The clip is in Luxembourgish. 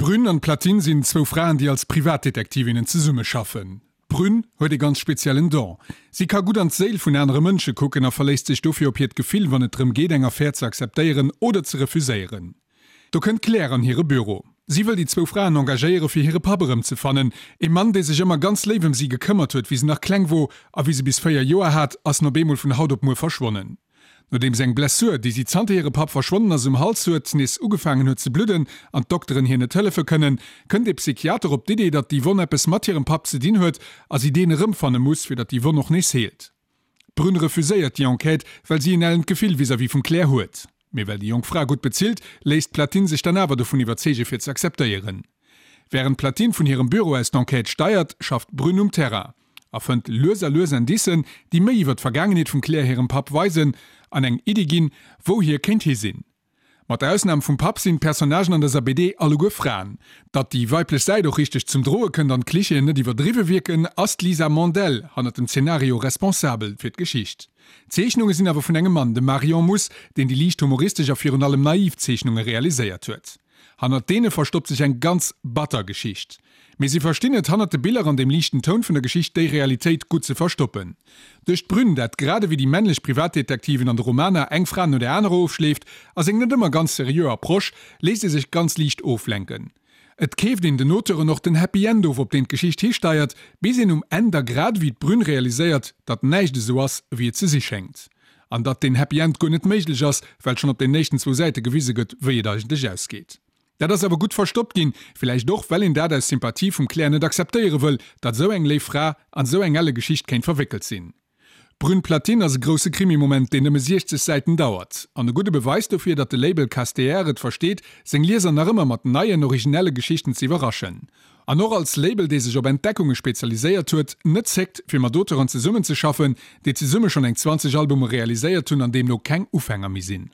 D'Brünn an d'Platine sinn zwou Fraen, déi als Privatdetektivinnen zesummeschaffen. D'Brünn huet ee ganz speziellen Don. Si ka gutt an d'Séil vun anere Mënsche kucken a verléisst sech dofir op hiert Gefill, wann et drëm geet, eng Affär ze akzeptéieren oder ze refuséieren. Do kënnt d'Claire an hire Büro. Si wëll déi zwou Fraen engagéiere fir hire Papp erëmzefannen, ee Mann, dee sech ëmmer ganz léif ëm si gekëmmert huet, wéi se nach kleng wor a wéi se bis 4 Joer hat, ass en op eemol vun haut op muer verschwonnen. Nodeems eng Blessur, déi si zanter hire Papp verschwonnen ass um Hals huet, nees ugefaangen huet ze bludden an d'Dokteren hir net hëllefe kënnen, kënnt ee Psychiater op d'Idee, datt déi Wonn eppes mat hirem Papp ze dinn huet a si deen erëmfanne muss, fir datt déi Wonn och nees heelt. D'Brune refuséiert déi Enquête, well si en ellent Gefill vis-à-vis vum Claire huet. Mee well déi jonk Fra gutt bezilt, léisst d'Platine sech dann awer dovun iwwerzeege fir ze akzeptéieren. Wärend d'Platine vun hirem Büro aus d'Enquête steiert, schafft d'Brune um Terrain. A fënnt lues a lues Indicen, déi méi iwwer d'Vergaangenheet vum Claire hirem Papp weisen an eng Iddi ginn, wou hie kéint hi sinn. Mat der Ausnam vum Papp sinn d'Personnagen an dëser BD alleguer Fraen. Datt déi weiblech Säit och richteg zum Droe kënnt an d'Klichéen net iwwerdriwwe wierken, ass d'Lisa Mandel hannert dem Zenario responsabel fir d'Geschicht. D'Zeechnunge sinn awer vun engem Mann, dem Marion Muss, deen déi liicht humoristesch a virun allem naiv Zeechnunge realiséiert huet. Hannert deene verstoppt sech eng ganz batter Geschicht. Mee si verstinn et, hannert de Biller an dem liichten Toun vun der Geschicht déi Realitéit gutt ze verstoppen. Duerch d'Brünn, dat grad ewéi déi männlech Privatdetektiven an de Romaner eng Fra no der anerer ofschleeft, a seng net ëmmer ganz seriö Approche, léisst ee sech ganz liicht oflenken. Et keeft een den Auteuren och den Happy End of, op deen d'Geschicht histeiert, bis een um Enn da grad ewéi d'Brünn realiséiert, datt näischt esou ass, ewéi et ze si schéngt. An datt deen Happy End guer net méiglech ass, well schonn op den éischten zwou Säite gewise gëtt, wéi et eigentlech ausgeet. Dat ass awer gutt verstoppt ginn, villäicht och, well een dat aus Sympathie vum Claire net akzeptéiere wëll, datt esou eng léif Fra an esou eng elle Geschicht kéint verwéckelt sinn. Brune Platine ass e grousse Krimi-Moment, deen nëmme 60 Säiten dauert. An e gudde Beweis dofir, datt de Label Casteer et versteet, seng Lieser nach ëmmer mat neien, originelle Geschichten ze iwwerraschen. An och als Label, dee sech op Entdeckunge spezialiséiert huet, net zéckt, fir mat Auteuren zesummenzeschaffen, déi zesumme schonn eng 20 Albume realiséiert hunn an deemno keng Ufänger méi sinn.